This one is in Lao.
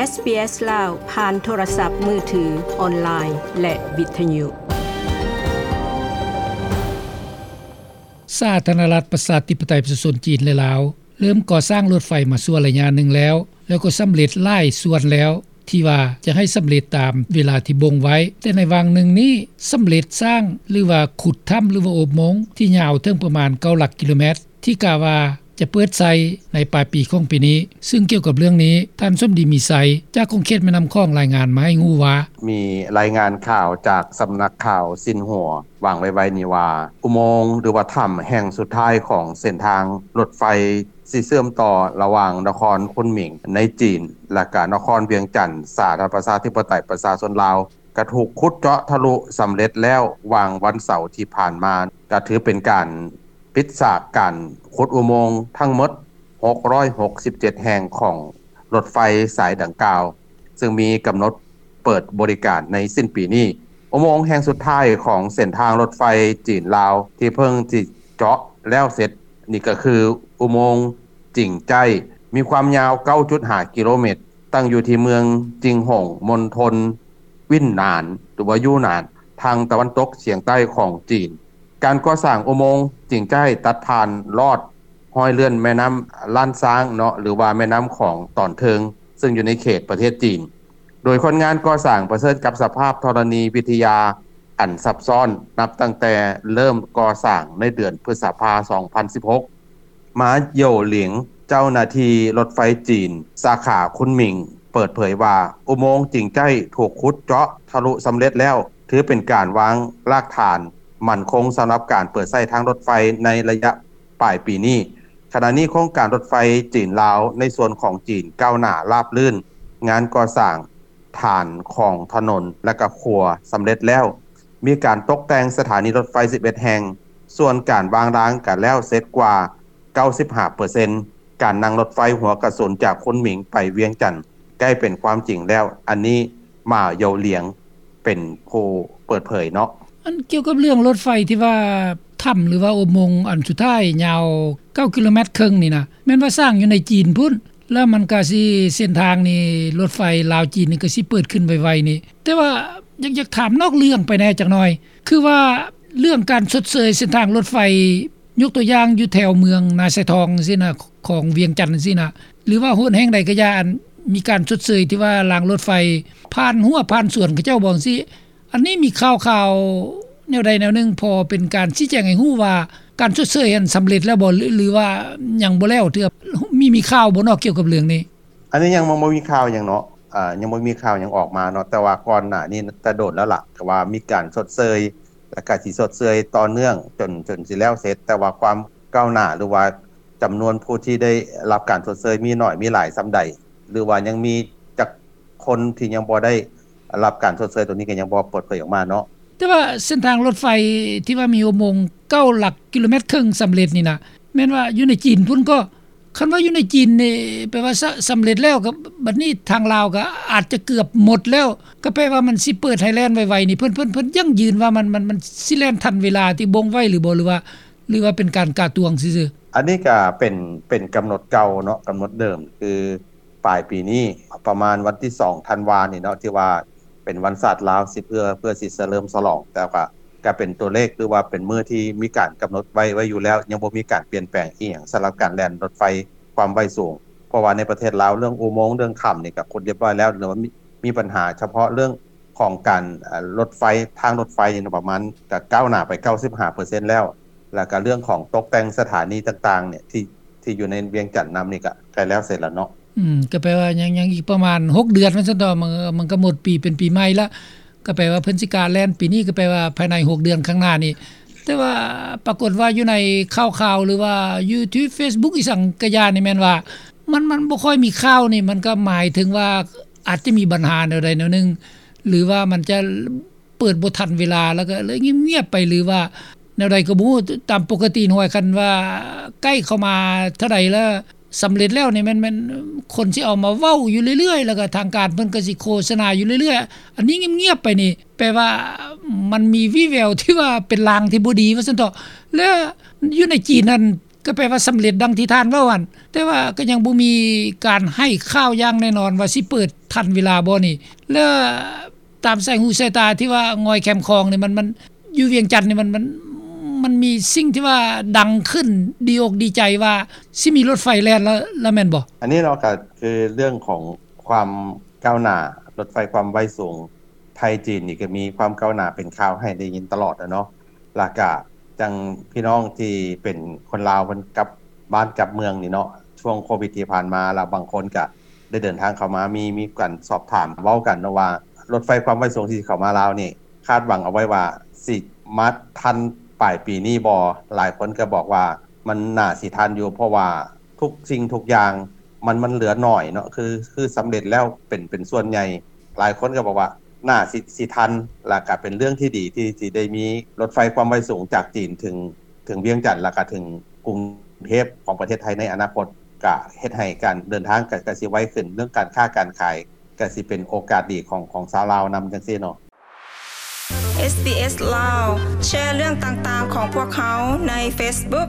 ເອສບີເອສ ລາວ ຜ່ານໂທລະສັບມືຖື, ອອນລາຍ ແລະ ວິທະຍຸ. ສາທາລະນະລັດ ປະຊາທິປະໄຕ ປະຊາຊົນຈີນ ແລະ ລາວ ເລີ່ມກໍ່ສ້າງລົດໄຟມາຊົ່ວໄລຍະໜຶ່ງແລ້ວ, ແລ້ວກໍສຳເລັດຫຼາຍສ່ວນແລ້ວ ທີ່ວ່າຈະໃຫ້ສຳເລັດຕາມເວລາທີ່ບົ່ງໄວ້, ແຕ່ໃນຫວ່າງໜຶ່ງນີ້ ສຳເລັດສ້າງ ຫຼືວ່າຂຸດຖ້ຳ ຫຼືວ່າອຸໂມງ ທີ່ຍາວເຖິງປະມານເກົ້າຫຼັກກິໂລແມັດ ທີ່ກະວ່າຈະເປີດໃຊ້ໃນປາຍປີຂອງປີນີ້. ຊຶ່ງກ່ຽວກັບເລື່ອງນີ້ ທ່ານ ສົມດີ ມີໄຊ ຈາກຂົງເຂດແມ່ນ້ຳຂອງ ລາຍງານມາໃຫ້ຮູ້ວ່າ: ມີລາຍງານຂ່າວຈາກສຳນັກຂ່າວຊິນຫົວ ວາງໄວ້ໆນີ້ວ່າ ອຸໂມງ ຫຼືວ່າຖ້ຳແຫ່ງສຸດທ້າຍຂອງເສັ້ນທາງລົດໄຟ ຊິເຊື່ອມຕໍ່ລະຫວ່າງນະຄອນຄຸນໝິງໃນຈີນ ແລະ ກະນະຄອນວຽງຈັນ ສາທາລະນະລັດ ປະຊາທິປະໄຕ ປະຊາຊົນລາວ ກະຖືກຂຸດເຈາະທະລຸສຳເລັດແລ້ວ ຫວ່າງວັນເສົາທີ່ຜ່ານມາ, ກະຖືເປັນການປິດສາກການຂຸດອຸໂມງທັງໝົດ ຫົກຮ້ອຍຫົກສິບເຈັດແຫ່ງຂອງລົດໄຟສາຍດັ່ງກ່າວ, ຊຶ່ງມີກຳນົດເປີດບໍລິການໃນສິ້ນປີນີ້. ອຸໂມງແຫ່ງສຸດທ້າຍຂອງເສັ້ນທາງລົດໄຟຈີນລາວ ທີ່ເພິ່ງຊິເຈາະແລ້ວເສັດນີ້ ກະຄືອຸໂມງຈິງໃຈ້ ມີຄວາມຍາວເກົ້າຈຸດຫ້າກິໂລແມັດ, ຕັ້ງຢູ່ທີ່ເມືອງຈິງຫົງ ມົນທົນ ວິນນານ ຫຼືວ່າຢູນານ ທາງຕາເວັນຕົກສຽງໃຕ້ຂອງຈີນ. ການກໍ່ສ້າງອຸໂມງຈິງໃຕ້ ຕັດຜ່ານລອດຮອຍເລື່ອນແມ່ນ້ຳລ້ານຊ້າງເນາະ ຫຼືວ່າແມ່ນ້ຳຂອງຕອນເທິງ ຊຶ່ງຢູ່ໃນເຂດປະເທດຈີນ, ໂດຍຄົນງານກໍ່ສ້າງປະເຊີນກັບສະພາບທໍລະນີວິທະຍາອັນຊັບຊ້ອນ ນັບຕັ້ງແຕ່ເລີ່ມກໍ່ສ້າງໃນເດືອນພຶດສະພາ ສອງພັນສິບຫົກ ມາ ໂຢຫຼຽງ ເຈົ້າໜ້າທີ່ລົດໄຟຈີນ ສາຂາຄຸນໝິງ ເປີດເຜີຍວ່າ ອຸໂມງຈິງໃຕ້ຖືກຂຸດເຈາະທະລຸສຳເລັດແລ້ວ, ຖືເປັນການວາງລາກຖານໝັ້ນຄົງສຳລັບການເປີດໃຊ້ທາງລົດໄຟໃນໄລຍະປາຍປີນີ້. ຂະນະນີ້ໂຄງການລົດໄຟຈີນລາວໃນສ່ວນຂອງຈີນກ້າວໜ້າລາບລື່ນ, ງານກໍ່ສ້າງ ຖານຂອງຖະໜົນ ແລະ ກະຂົວສຳເລັດແລ້ວ, ມີການຕົກແຕ່ງສະຖານີລົດໄຟສິບເອັດແຫ່ງ, ສ່ວນການວາງລາງກະແລ້ວເສັດກວ່າເກົ້າສິບຫ້າເປີເຊັນ, ການນັ່ງລົດໄຟຫົວກະສຸນຈາກຄຸນໝິງໄປວຽງຈັນໃກ້ເປັນຄວາມຈິງແລ້ວ. ອັນນີ້ ໝາ ໂຢຫຼຽງ ເປັນຜູ້ເປີດເຜີຍເນາະ. ອັນກ່ຽວກັບເລື່ອງລົດໄຟທີ່ວ່າຖ້ຳ ຫຼືວ່າອຸໂມງອັນສຸດທ້າຍຍາວເກົ້າກິໂລແມັດເຄິ່ງນີ້ນະ ແມ່ນວ່າສ້າງຢູ່ໃນຈີນພຸ້ນ ແລ້ວມັນກະຊິເສັ້ນທາງນີ້ ລົດໄຟລາວຈີນນີ້ກະຊິເປີດຂຶ້ນໄວໆນີ້. ແຕ່ວ່າຢາກ ຢາກຖາມນອກເລື່ອງໄປແດ່ຈັກໜ່ອຍ ຄືວ່າເລື່ອງການຊົດເຊີຍເສັ້ນທາງລົດໄຟ ຍົກຕົວຢ່າງຢູ່ແຖວເມືອງນາຊາຍທອງຈັ່ງຊີ້ນະ ຂອງວຽງຈັນຈັ່ງຊີ້ນະ ຫຼືວ່າໂຫນແຫ່ງໃດກະຢ່າ ອັນມີການຊົດເຊີຍທີ່ວ່າລາງລົດໄຟຜ່ານຮົ້ວຜ່ານສວນເຂົາເຈົ້າບໍ່ຈັ່ງຊີ້ ອັນນີ້ມີຂ່າວໆແນວໃດແນວໜຶ່ງ ພໍເປັນການຊີ້ແຈງໃຫ້ຮູ້ວ່າ ການຊົດເຊີຍຫັ້ນສຳເລັດແລ້ວບໍ່ ຫຼື ຫຼືວ່າຍັງບໍ່ແລ້ວເທື່ອ? ມີ ມີຂ່າວບໍ່ເນາະກ່ຽວກັບເລື່ອງນີ້? ອັນນີ້ຍັງບໍ່ ບໍ່ມີຂ່າວຫຍັງເນາະ, ອາ ຍັງບໍ່ມີຂ່າວຫຍັງອອກມາເນາະ, ແຕ່ວ່າກ່ອນໜ້ານີ້ແຕ່ດົນແລ້ວລະ ກະວ່າມີການຊົດເຊີຍ ແລະ ກະຊິຊົດເຊີຍຕໍ່ເນື່ອງຈົນ ຈົນຊິແລ້ວເສັດ, ແຕ່ວ່າຄວາມກ້າວໜ້າ ຫຼືວ່າຈຳນວນຜູ້ທີ່ໄດ້ຮັບການຊົດເຊີຍມີໜ້ອຍມີຫຼາຍສ່ຳໃດ ຫຼືວ່າຍັງມີຈັກຄົນທີ່ຍັງບໍ່ໄດ້ ຮັບການຊົດເຊີຍໂຕນີ້ກະຍັງບໍ່ເປີດເຜີຍອອກມາເນາະ. ແຕ່ວ່າເສັ້ນທາງລົດໄຟທີ່ວ່າມີອຸໂມງເກົ້າຫຼັກກິໂລແມັດເຄິ່ງສຳເລັດນີ້ນະ ແມ່ນວ່າຢູ່ໃນຈີນພຸ້ນກໍ ຄັນວ່າຢູ່ໃນຈີນນີ້ ແປວ່າສະ ສຳເລັດແລ້ວ ກະບັດນີ້ທາງລາວກະອາດຈະເກືອບໝົດແລ້ວ ກະແປວ່າມັນຊິເປີດໃຫ້ແລ່ນໄວໆນີ້ ເພິ່ນ ເພິ່ນ ເພິ່ນຢັ້ງຢືນວ່າມັນ ມັນ ມັນຊິແລ່ນທັນເວລາທີ່ບົ່ງໄວ້ຫຼືບໍ່ ຫຼືວ່າ ຫຼືວ່າເປັນການກະຕວງຊື່ໆ? ອັນນີ້ກະເປັນ ເປັນກຳນົດເກົ່າເນາະ, ກຳນົດເດີມຄື ປາຍປີນີ້ ປະມານວັນທີສອງທັນວານີ້ເນາະ ທີ່ວ່າເປັນວັນຊາດລາວ ຊິເພື່ອ ເພື່ອຊິສະເຫຼີມສະຫຼອງ, ແຕ່ວ່າກະເປັນຕົວເລກ ຫຼືວ່າເປັນມື້ທີ່ມີການກຳນົດໄວ້ ໄວ້ຢູ່ແລ້ວ, ຍັງບໍ່ມີການປ່ຽນແປງອີ່ຫຍັງສຳລັບການແລ່ນລົດໄຟຄວາມໄວສູງ. ເພາະວ່າໃນປະເທດລາວ ເລື່ອງອຸໂມງ ເລື່ອງຖ້ຳນີ້ກະຂຸດລຽບຮ້ອຍແລ້ວ, ຫຼືວ່າມີ ມີບັນຫາສະເພາະເລື່ອງຂອງການ ເອີ ລົດໄຟ ທາງລົດໄຟນີ້ປະມານກະກ້າວໜ້າໄປເກົ້າສິບຫ້າເປີເຊັນແລ້ວ, ແລ້ວກະເລື່ອງຂອງຕົກແຕ່ງສະຖານີຕ່າງໆນີ້ ທີ່ ທີ່ຢູ່ໃນວຽງຈັນນຳນີ້ກະໃກ້ແລ້ວເສັດແລ້ວເນາະ. ອືມ ກະແປວ່າຍັງ ຍັງອີກປະມານຫົກເດືອນວ່າຊັ້ນເຖາະ, ມັນ ມັນກະໝົດປີ ເປັນປີໃໝ່ລະ, ກະແປວ່າເພິ່ນຊິການແລ່ນປີນີ້ ກະແປວ່າພາຍໃນຫົກເດືອນຂ້າງໜ້ານີ້. ແຕ່ວ່າປາກົດວ່າຢູ່ໃນຂ່າວໆ ຫຼືວ່າຢູ່ທີ່ເຟສບຸກອີ່ສັງກະຢ່ານີ້ ແມ່ນວ່າມັນ ມັນບໍ່ຄ່ອຍມີຂ່າວນີ້ ມັນກະໝາຍເຖິງວ່າອາດຈະມີບັນຫາແນວໃດແນວໜຶ່ງ ຫຼືວ່າມັນຈະ ເປີດບໍ່ທັນເວລາ ແລ້ວກະເລີຍງຽບໆໄປ ຫຼືວ່າແນວໃດກະບໍ່ຮູ້. ຕາມປົກກະຕິຫວຍ ຄັນວ່າໃກ້ເຂົ້າມາເທົ່າໃດແລ້ວ ສຳເລັດແລ້ວນີ້ ແມ່ນ ແມ່ນຄົນຊິເອົາມາເວົ້າຢູ່ເລື້ອຍໆ ແລ້ວກະທາງການເພິ່ນກະຊິໂຄສະນາຢູ່ເລື້ອຍໆ. ອັນນີ້ງຽບໆໄປນີ້ ແປວ່າມັນມີວີ່ແວວທີ່ວ່າເປັນລາງທີ່ບໍ່ດີວ່າຊັ້ນເຖາະ. ແລະ ຢູ່ໃນຈີນຫັ້ນ ກໍແປວ່າສຳເລັດດັ່ງທີ່ທ່ານເວົ້າຫັ້ນ, ແຕ່ວ່າກໍຍັງບໍ່ມີການໃຫ້ຂ່າວຢ່າງແນ່ນອນວ່າຊິເປີດທັນເວລາບໍ່ນີ້. ແລະ ຕາມສາຍຫູສາຍຕາທີ່ວ່າງ່ອຍແຄມຂອງນີ້ ມັນ ມັນ ຢູ່ວຽງຈັນນີ້ ມັນ ມັນ ມັນມີສິ່ງທີ່ວ່າດັງຂຶ້ນ ດີອົກດີໃຈວ່າຊິມີລົດໄຟແລ່ນແລ້ວ ແລ້ວແມ່ນບໍ່? ອັນນີ້ເນາະ ກໍຄືເລື່ອງຂອງຄວາມກ້າວໜ້າ ລົດໄຟຄວາມໄວສູງໄທຈີນນີ້ ກໍມີຄວາມກ້າວໜ້າເປັນຂ່າວໃຫ້ໄດ້ຍິນຕະຫຼອດແລ້ວເນາະ. ແລ້ວກະຈັ່ງພີ່ນ້ອງທີ່ເປັນຄົນລາວ ເພິ່ນກັບບ້ານກັບເມືອງນີ້ເນາະ ຊ່ວງໂຄວິດທີ່ຜ່ານມາ ແລ້ວບາງຄົນກະໄດ້ເດີນທາງເຂົ້າມາ ມີ ມີການສອບຖາມເວົ້າກັນເນາະວ່າ ລົດໄຟຄວາມໄວສູງທີ່ເຂົ້າມາລາວນີ້ ຄາດຫວັງເອົາໄວ້ວ່າຊິມາທັນປາຍປີນີ້ບໍ່? ຫຼາຍຄົນກໍບອກວ່າມັນໜ້າຊິທັນຢູ່ ເພາະວ່າທຸກສິ່ງທຸກຢ່າງ ມັນ ມັນເຫຼືອໜ້ອຍເນາະ ຄື ຄືສຳເລັດແລ້ວເປັນ ເປັນສ່ວນໃຫຍ່. ຫຼາຍຄົນກໍບອກວ່າໜ້າຊິ ຊິທັນ ແລ້ວກໍເປັນເລື່ອງທີ່ດີທີ່ ທີ່ໄດ້ມີລົດໄຟຄວາມໄວສູງຈາກຈີນເຖິງ ເຖິງວຽງຈັນ ແລ້ວກໍເຖິງກຸງເທບຂອງປະເທດໄທໃນອະນາຄົດ ກໍເຮັດໃຫ້ການເດີນທາງກໍ ກໍຊິໄວຂຶ້ນ ເລື່ອງການຄ້າການຂາຍ ກໍຊິເປັນໂອກາດດີຂອງ ຂອງຊາວລາວນຳ ຈັ່ງຊີ້ເນາະ. ເອສບີເອສ ລາວ ແຊເລື່ອງຕ່າງໆຂອງພວກເຮົາໃນເຟສບຸກ